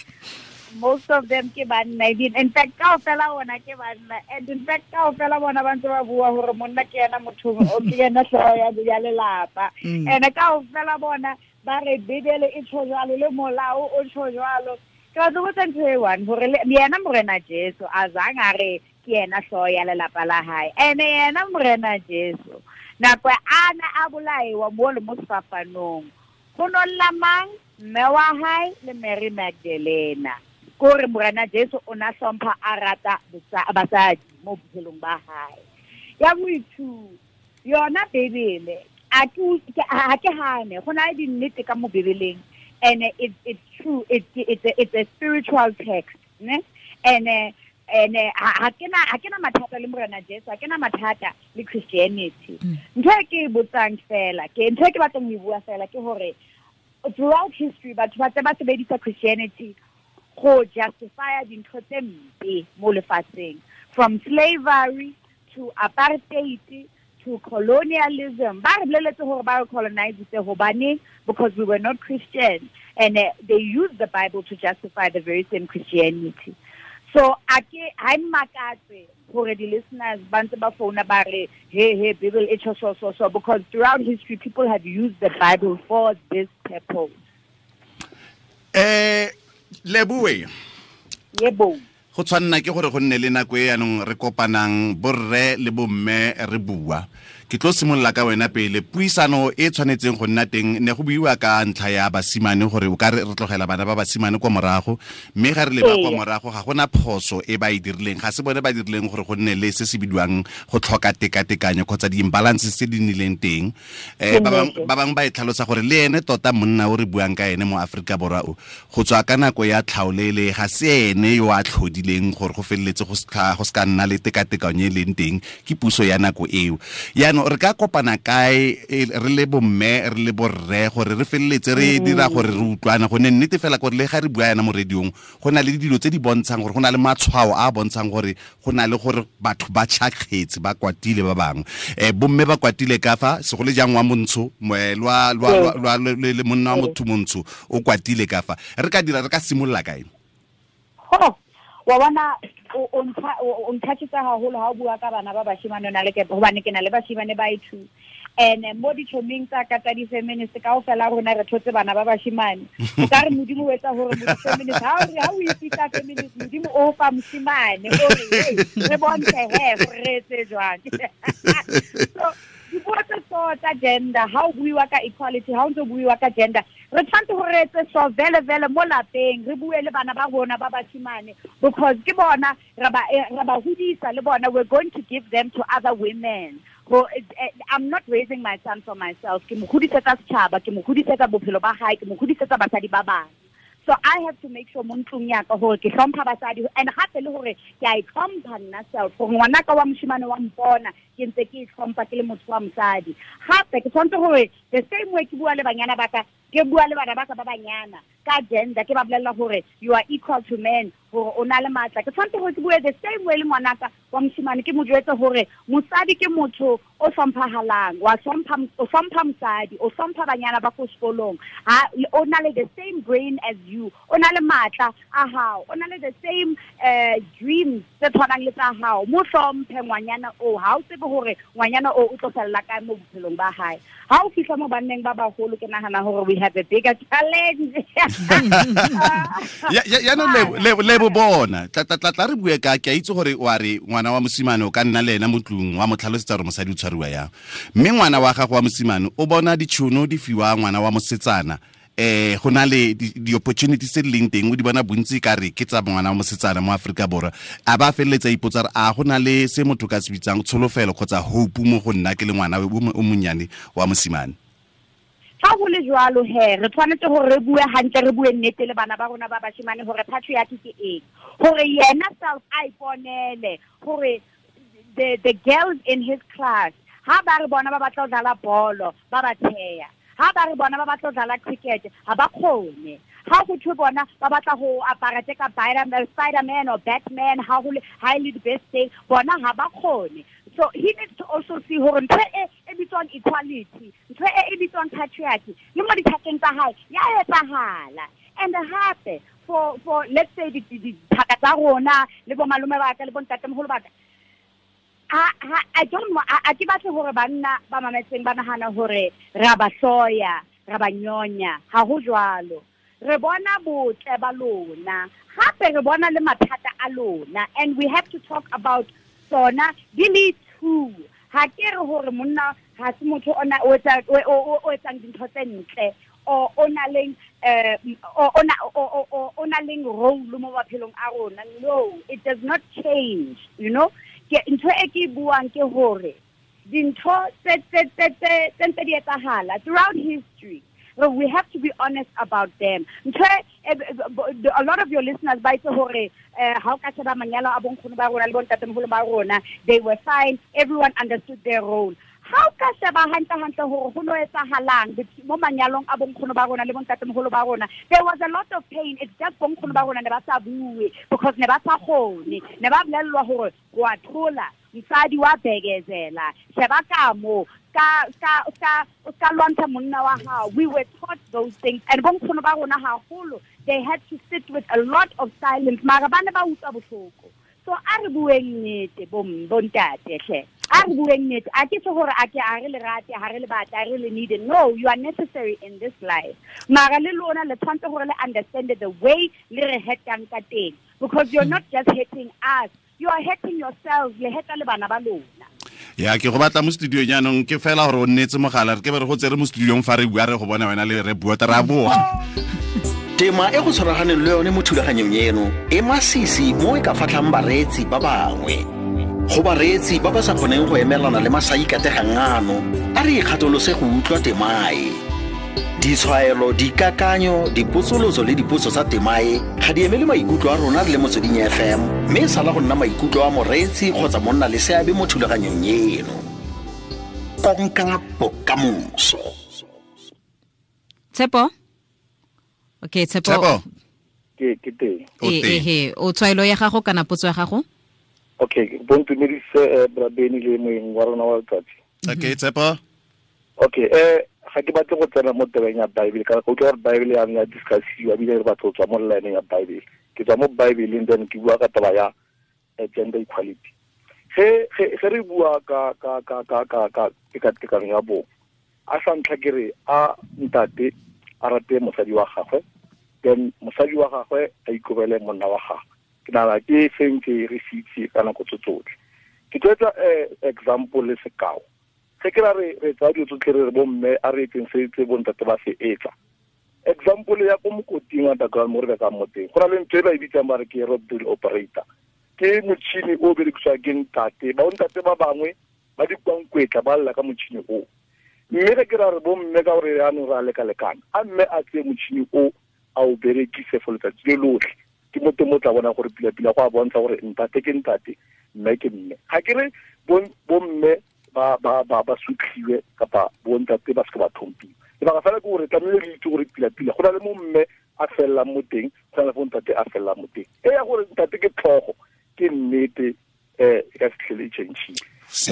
most of them ke banna. In fact, kaofela bona ke banna, and in fact kaofela bona ba ntse ba bua hore monna ke yena motho o ke yena hlooho ya lelapa, and kaofela bona ba re Bibele e tjho jwalo le molao o tjho jwalo. Ke batla ho botsa ntho e one hore yena Morena Jesu a zang a re ke yena hlooho ya lelapa la hae, ene yena Morena Jesu nako ana a bolaiwa mo le mo sefapanong, go nolla mang? Mme wa hae le Mary Magdalena. Kore Morena Jesu o na hlompha a rata basadi mo bophelong ba hae. Ya boithu yona Bibele a ke hane go na le dinnete ka mo Bibeleng, and it's true, it's a spiritual text, ne? And ha ke na mathata le Morena Jesu, ha ke na mathata le Christianity. Ntho e ke botsang fela, ke ntho e ke batlang ho e bua fela ke hore throughout history batho ba tse ba sebedisa Christianity go justify dintho tse mpe mo lefatsheng, from slavery to apartheid to colonialism. Ba re boleletse hore ba re colonizitse hobane because we were not Christian, and they used the Bible to justify the very same Christianity. So a ke ha mmakatse hore di listeners ba ntse ba founa ba re hey Bible e tjho so because throughout history people have used the Bible for this purpose. Leboe. Yebo. Go tshwanna ke gore go nne le nako e yanong re kopanang borre le bomme re bua. Ke tlo simolola ka wena pele. Puisano e tshwanetseng go nna teng ne go buiwa ka ntlha ya basimane gore o ka re tlogela bana ba basimane kwa morago, mme ga re leba kwa morago ga gona phoso e ba e dirileng, ga se bone ba dirileng gore go nne le se se bidiwang go tlhoka tekatekanyo kgotsa di-imbalances tse di nnileng teng. Ba bangwe ba e tlhalosa gore le ene tota monna o re buang ka ene mo Aforika Borwa o go tswa ka nako ya tlhaolele ga se ene yo a tlhodileng gore go feleletse go se ka nna le tekatekanyo e leng teng, ke puso ya nako eo. Yaanong re ka kopana kae re le bomme re le borre gore re feleletse re dira gore re utlwana, gonne nnete fela gore le ga re bua yana mo radiong go na le dilo tse di bontshang gore go na le matshwao a bontshang gore go na le gore batho ba tšhakgetse ba kwatile ba bangwe, bomme ba kwatile ka fa segole jang wa montsho lwa le monna wa motho montsho o kwatile ka fa. Re ka dira re ka simolola kae? Wa bona o nthatisa haholo ha o bua ka bana ba bashimane na le ke hobane ke na le bashimane ba two, and mo ditšhoming tsa ka tsa di-feminist kaofela rona re thotse bana ba bashimane. O ka re Modimo o etsa hore mo-feminist ha o ipitsa feminist Modimo o fa moshimane o re re bontshe he gore re etse jwang. So dipuo tse so tsa gender, ha o buiwa ka equality, ha o ntse o buiwa ka gender, re tshwanetse gore re etse so vele vele mo lapeng, re bue le bana ba rona ba bashimane, because ke bona re ba hodisa le bona, we're going to give them to other women. I'm not raising my son for myself. Ke mo hodisetsa setjhaba, ke mo hodisetsa bophelo ba hae, ke mo hodisetsa basadi ba bang. So I have to make sure mo ntlong ya ka hore ke hlompha basadi, and hape le hore ke a itlhompha nna self, gore ngwanaka wa moshimane wa mpona ke ntse ke itlhompha ke le motho wa mosadi. Hape ke tshwanetse hore the same way ke bua le banyana ba ka, ke bua le bana ba ka ba banyana ka gender, ke ba bolella hore you are equal to men, hore o na le matla. Ke tshwanetse hore ke bue the same way le ngwanaka wa moshimane, ke mo jwetse hore mosadi ke motho o hlomphahalang, wa hlompha, o hlompha mosadi, o hlompha banyana ba ko sekolong, ha o na le the same brain as you, o na le matla a hao, o na le the same dreams tse tshwanang le tsa hao. Mo hlomphe ngwanyana o, ha o tsebe hore ngwanyana o o tlo fella kae mo bophelong ba hae. Ha o fihla mo banneng ba baholo, ke nahana hore we have a bigger challenge. Ya no le bo bona tla re bue ka ke a itse gore wa re ngwana wa mosimane o ka nna le ena mo tlung wa mo tlhalosetsa gore mosadi o tshwariwa yang, mme ngwana wa gago wa mosimane o bona ditšhono di fiwa ngwana wa mosetsana Go na le di-opportunities tse di leng teng o di bona bontsi ka re ke tsa ngwana wa mosetsana mo Aforika Borwa. A ba feleletsa ipotsa re a go na le se motho ka se bitsang tsholofelo kgotsa hope mo go nna ke le ngwana o monnyane wa mosimane. Fa go le jwalo he, re tshwanetse gore re bue hantle, re bue nnete le bana ba rona ba bashimane gore patriarchy ke eng, gore yena self a iponele gore the girls in his class ha ba re bona ba batla ho dlala bolo ba ba theya, ha ba re bona ba batla ho dlala cricket ha ba kgone, ha go thwe bona ba batla go apara tse ka Spider-Man or Batman, ha go ha e le the best day bona ha ba kgone. So he needs to also see hore ntho e bitswang equality, ntho e bitswang patriarchy le mo dithakeng tsa hae ya etsahala. And hape for let's say dithaka tsa rona le bo malome ba ka le bo ntatemoholo ba ka, I don't know, a ke batle hore banna ba mametseng ba nahana hore ra ba hloya, ra ba nyonya. Ha ho jwalo. Re bona botle ba lona, hape re bona le mathata a lona, and we have to talk about tsona di le two. Ha ke re hore monna ha se motho ona o etsang dintho tse ntle o na leng o na leng role mo maphelong a rona. No, it does not change, you know. Ke ntho e ke buang ke hore dintho tse ntse di etsahala throughout history. We have to be honest about them. A lot of your listeners ba itse hore ha o ka sheba manyalo a bonkgono ba rona le bontatemoholo ba rona, they were fine, everyone understood their role. Ha o ka sheba hantle hore ho no etsahalang mo manyalong a bonkgono ba rona le bontatemoholo ba rona, there was a lot of pain. It's just bonkgono ba rona ne ba sa bue because ne ba sa kgone, ne ba bolellwa hore wa thola mosadi wa bekezela, sheba ka mo ka lwantsha monna wa hao. We were taught those things, and bonkgono ba rona haholo, they had to sit with a lot of silence, mara ba ne ba utlwa bohloko. So a re bueng nnete bontate hle, a re bueng nnete. A ke tjho hore a ke a re le rate, ha re le batla, re le need. No, you are necessary in this life. Mara le lona le tshwanetse hore le understand the way le re hetang ka teng, because you're not just hating us, you are hating yourselves, le heta le bana ba lona. Ya ke go batla mo studio jaanong ke fela gore o nnetse mogala re ke be re go tsere mo studiong fa re bua re go bona wena le re bua ra boa. Tema e go tshwaraganeng le yone mo thulaganyong eno e masisi mo e ka fatlhang bareetsi ba bangwe. Go bareetsi ba ba sa kgoneng go emelana le masaikategang ano, a re ikgatolose go utlwa temae. Ditshwaelo, dikakanyo, dipotsolotso le dipotso tsa temae ga di emele maikutlo a rona re le Motsweding FM, mme e sala go nna maikutlo a moreetsi kgotsa monna le seabe mo thulaganyong eno. Konka bokamoso. Tshepo? Okay, Tshepo. Ke teng. Ehe, o tshwaelo ya gago kana potso ya gago? Okay, bontumedise Brabeni le moeng wa rona wa letsatsi. Okay, Tshepo. Okay, ga ke batle go tsena mo tabeng ya Bible ka go utlwa gore Bible ya ya discussiwa ebile re batla go tswa mo line ya Bible. Ke tswa mo Bible then ke bua ka taba ya gender equality. Ge re bua ka tekatekano ya bong, a sa ntlha ke re a ntate a rate mosadi wa gagwe, then mosadi wa gagwe a ikobele monna wa gagwe. Ke nagana ke sentse re se itse ka nako tse tsotlhe. Ke tlo etsa example le sekao. Ge ke ra re tsaya dilo tsotlhe re re bomme a re etseng se tse bontate ba se etsa. Example ya ko mokoting wa underground mo re bekang mo teng, go na le ntho e ba e bitsang ba re ke rock drill operator. Ke motšhini o berekisiwang ke ntate, ba bontate ba bangwe ba dikwankwetla ba lla ka motšhini o. Mme ge ke ra re bomme ka gore jaanong re a lekalekana, a mme a tseye motšhini o a o berekise for letsatsi le lotlhe. Ke mo teng mo tla bonang gore pila-pila go a bontsha gore ntate ke ntate, mme ke mme. Ga ke re bomme ba sutlhiwe kapa bontate ba se ba thompiwe. Lebaka fela ke gore tlamehile re itse gore pila-pila go na le mo mme a fellang mo teng, go na le mo ntate a fellang mo teng. E ya gore ntate ke tlhogo ke nnete, e ka se tlhele e change-ile.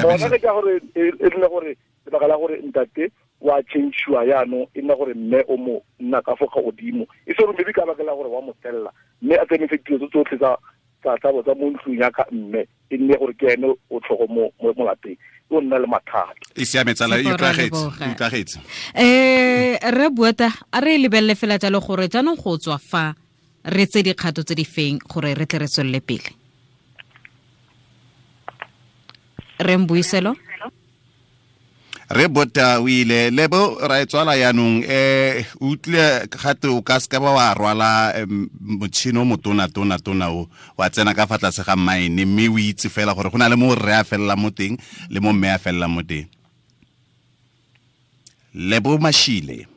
Bona ke ka gore e nne gore lebaka la gore ntate wa change-iwa jaanong e nna gore mme o mo nna ka fo godimo, e se gore maybe ka baka la gore wa mo tella, mme a tsamaise dilo tse tsotlhe tsa mo ntlong ya ka mme e nne gore ke ene o tlhogo mo lapeng, o nna le mathata. E siame tsala, e utlwagetse. Re Buata, a re lebelele fela jalo gore jaanong go tswa fa re tse dikgato tse di feng gore re tle re tswelele pele. Re Mbuiselo? Re bota o ile lebo ra e tswala yaanong utlwe gate o ka seka ba wa rwala motšhini o motona tona tona o wa tsena ka fa tlase ga mine mme o itse fela gore go na le mo rre a felela mo teng le mo mme a felela mo teng. Lebo Mashile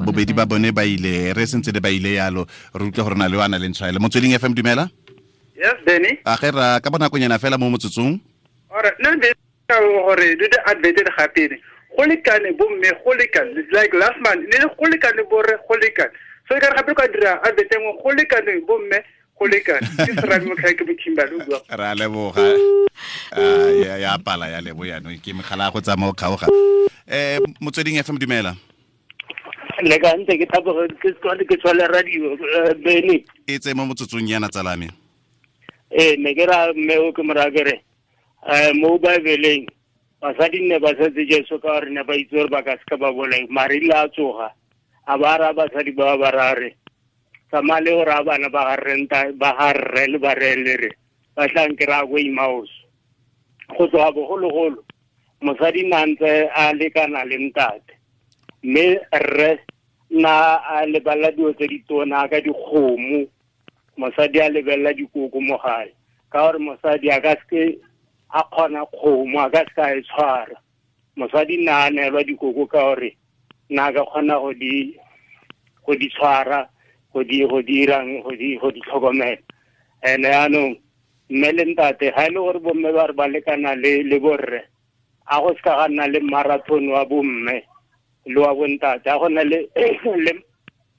bobedi ba bone ba ile re sentse le ba ile yalo re utlwe gore na le wa na le ntshwaelo. Motsweding FM dumela. Yes Benny. A ge ra ka bonakonyana fela mo motsotsong. Alright, nna be ka gore do the advert gape go lekane bomme go lekane like last month ne go lekane borre go lekane so e ka re gape ka dira advert engwe go lekane bomme go lekane ke serame motlhae ke Kimberley o bua. Ra leboga. Ya pala ya lebo yaanong ke megala go tsamaya o kgaoga. Motsweding FM dumela. Le ka ntse ke thaboga ke tswale radio Benny. E tse mo motsotsong yana tsalame. Ne ke ra mme o ke mora kere mo Bibeleng basadi ne ba setse Jesu ka gore ne ba itse gore ba ka seka ba bolai mare ile a tsoga a ba ra basadi ba ba rare tsamaya le gore a bana ba ga rre le ba re le re ba tla nkry-a ko Emmaus. Go tloga bogologolo mosadi na ntse a lekana le ntate mme rre na a lebelela dilo tse di tona ka dikgomo mosadi a lebelela dikoko mo gae ka gore mosadi a ka seke a kgona kgomo a ka seke a e tshwara. Mosadi na a neelwa dikoko ka gore na ka kgona go di tshwara go di dirang go di tlhokomela. Ene yaanong mme le ntate ga e le gore bomme ba re ba lekana le borre a go seka ga nna le marathon wa bomme le wa bontate a go nna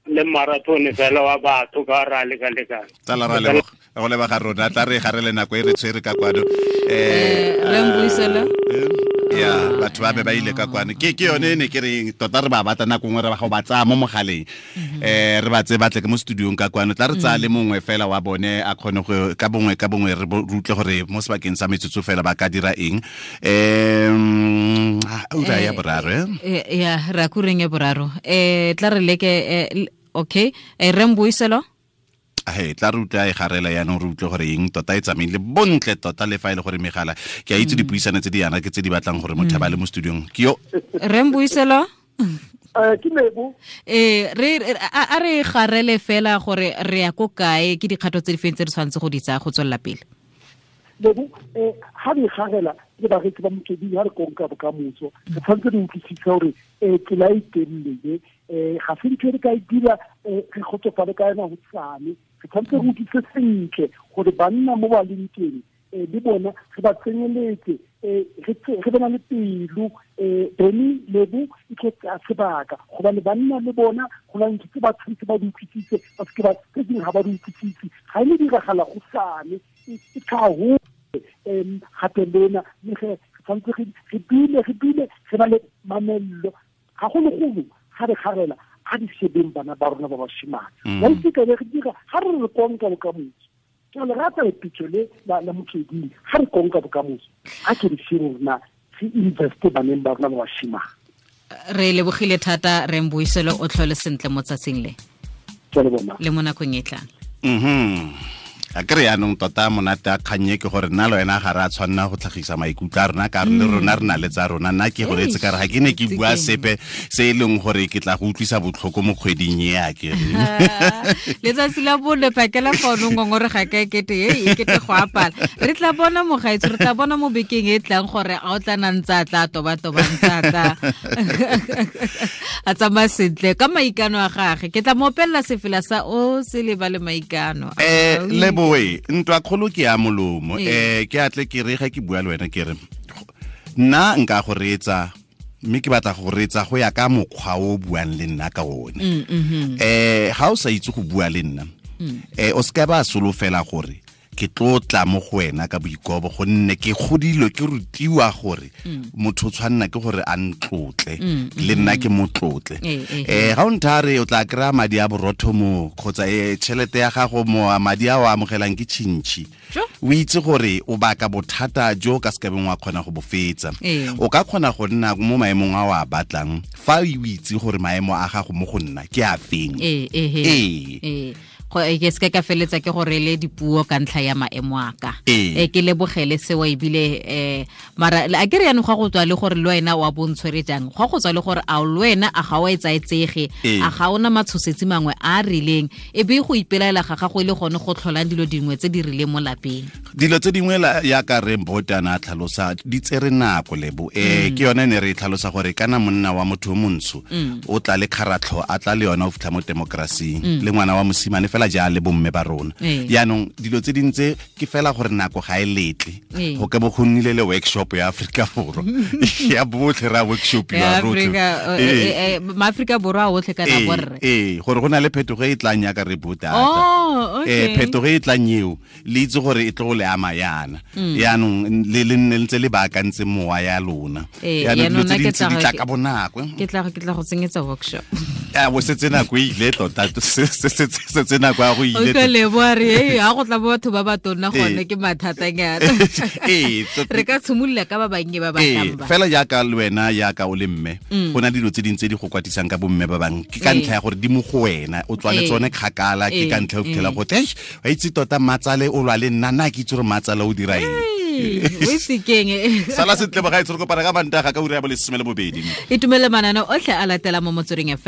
le marathon fela wa batho ka ra leka-lekana. Tsala ra leboga go leba ga rona tla re gare le nako e re tshwere ka kwano re mbuisela ya batho ba be ba ile ka kwano ke yone ne ke re tota re ba batla nako nngwe re ba go ba tsaya mo mogaleng re ba tse batle ke mo studiong ka kwano tla re tsaya le mongwe fela wa bone a kgone go ka bongwe re utlwe gore mo sebakeng sa metsotso fela ba ka dira eng. Ura ya boraro ya ra kureng ya boraro tla re leke okay re mbuiselo he tla re utlwa e garela yaanong re utlwe gore eng tota e tsamaile bontle tota le fa e le gore megala ke a itse dipuisano tse di yana ke tse di batlang gore motho a ba le mo studiong ke yo re mbuiselo ke Lebo re a re garele fela gore re ya ko kae ke dikgato tse di feng tse re tshwanetse go di tsaya go tswelela pele. Lebo ha re garela le bareetsi ba Motsweding ha re konka bokamoso re tshwanetse re utlwisise gore tsela e telele ga se ntho e re ka e dira re kgotsofale ka yona go tsane re tshwanetse re utlwise sentle gore banna mo ba leng teng le bona re ba tsenyeletse re bona le pelo Benny Lebo e tlo tsaya sebaka gobane banna le bona go na ntho tse ba tshwanetse ba di utlwisise ba seke ba tse dingwe ga ba di utlwisise ga e ne diragala go sane e tlhago gape lena mme ge re tshwanetse re dule re ba le mamello gagologolo ga re garela a di shebeng bana ba rona ba bashimane ba itse ka re dira ga re re konka bokamoso ke le rata lepitso le la Motsweding ga re konka bokamoso a ke re shebe rona re investe baneng ba rona ba bashimane. Re lebogile thata re mbuiselo o tlhole sentle mo tsatsing le le mo nakong e tlang. A kry yaanong tota monate a kgannye ke gore nna le wena ga re a tshwanna go tlhagisa maikutlo a rona ka re le rona re na le tsa rona. Nna ke goletse ka re ga ke ne ke bua sepe se e leng gore ke tla go utlwisa botlhoko mo kgweding e a ke letsatsi la bone phakela fono ngongore ga ka ekete e ekete go apala re tla bona mogaetso re tla bona mo bekeng e tlang gore a o tla nna ntse a tla toba-toba ntse a tla a tsamaya sentle ka maikano a gage ke tla mo opelela sefela sa o se lebale maikano. Leboe ntwa kgolo ke ya molomo ke atle ke re ga ke bua le wena ke re nna nka go reetsa mme ke batla go reetsa go ya ka mokgwa o buang le nna ka one. Ga o sa itse go bua le nna o se ka ba solofela gore ke tlo tla mo go wena ka boikobo gonne ke godilwe ke rutiwa gore motho o tshwanna ke gore a ntlotle le nna ke motlotle. Ga o nthare o tla kry-a madi a borotho mo kgotsa tšhelete ya gago mo madi a o amogelang ke tšhintšhi o itse gore o baka bothata jo ka sekabeng wa kgona go bo fetsa. O ka kgona go nna mo maemong a o a batlang fa o itse gore maemo a gago mo go nna ke a feng. Go ke se ka feletsa ke gore le dipuo ka ntlha ya maemo a ka. Ke lebogele seo ebile mara a ke re yanong go go tswa le gore le wena wa bontshwere jang, go go tswa le gore a le wena a ga wa etsaetsege, a ga ona matshosetsi mangwe a rileng, e be go ipelaela ga gago ile gone go tlholang dilo dingwe tse di rileng mo lapeng. Dilo tse dingwe ya ka re Mbotana a tlhalosa di tsere nako lebo. Ke yone ne re tlhalosa gore kana monna wa motho o montsho o tla le kgaratlho a tla le yona o fitlha mo demokrasing, le ngwana wa mosimane fela ja le bomme ba rona. Yaanong dilo tse dintse ke fela gore nako ga e letle go ka bo go nnile le workshop ya Afrika Borwa ya botlhe ra workshop ya rotlhe Maaforika Borwa a otlhe kana borre. Gore go na le phetogo e tlang ya ka re botata. Phetogo e tlang eo le itse gore e tlo go le ama yana. Yaanong le nne ntse le baakantse mowa ya lona. Yaanong dilo tse dintsi di tla ka bonako. Ke tla go tsenyetsa workshop. Bo setse nako e ile tota, setse nako ya go ile. O ka leboa re ha go tla batho ba ba tonna gone ke mathatanyana. Re ka tshimolola ka ba bannye ba ba tlang ba. Fela jaaka le wena jaaka o le mme, go na dilo tse dintsi di go kwatisang ka bomme ba bang. Ke ka ntlha ya gore di mo go wena, o tswa le tsone kgakala, ke ka ntlha o fitlhela go te wa itse tota matsale o lwa le nna, nna ke itse gore matsale o dira eng. O itse keng. Sala sentle bagaetsho, re kopana ka Mantaga ka ura ya bo 12. Itumele mananeo otlhe a latela mo Motsweding FM.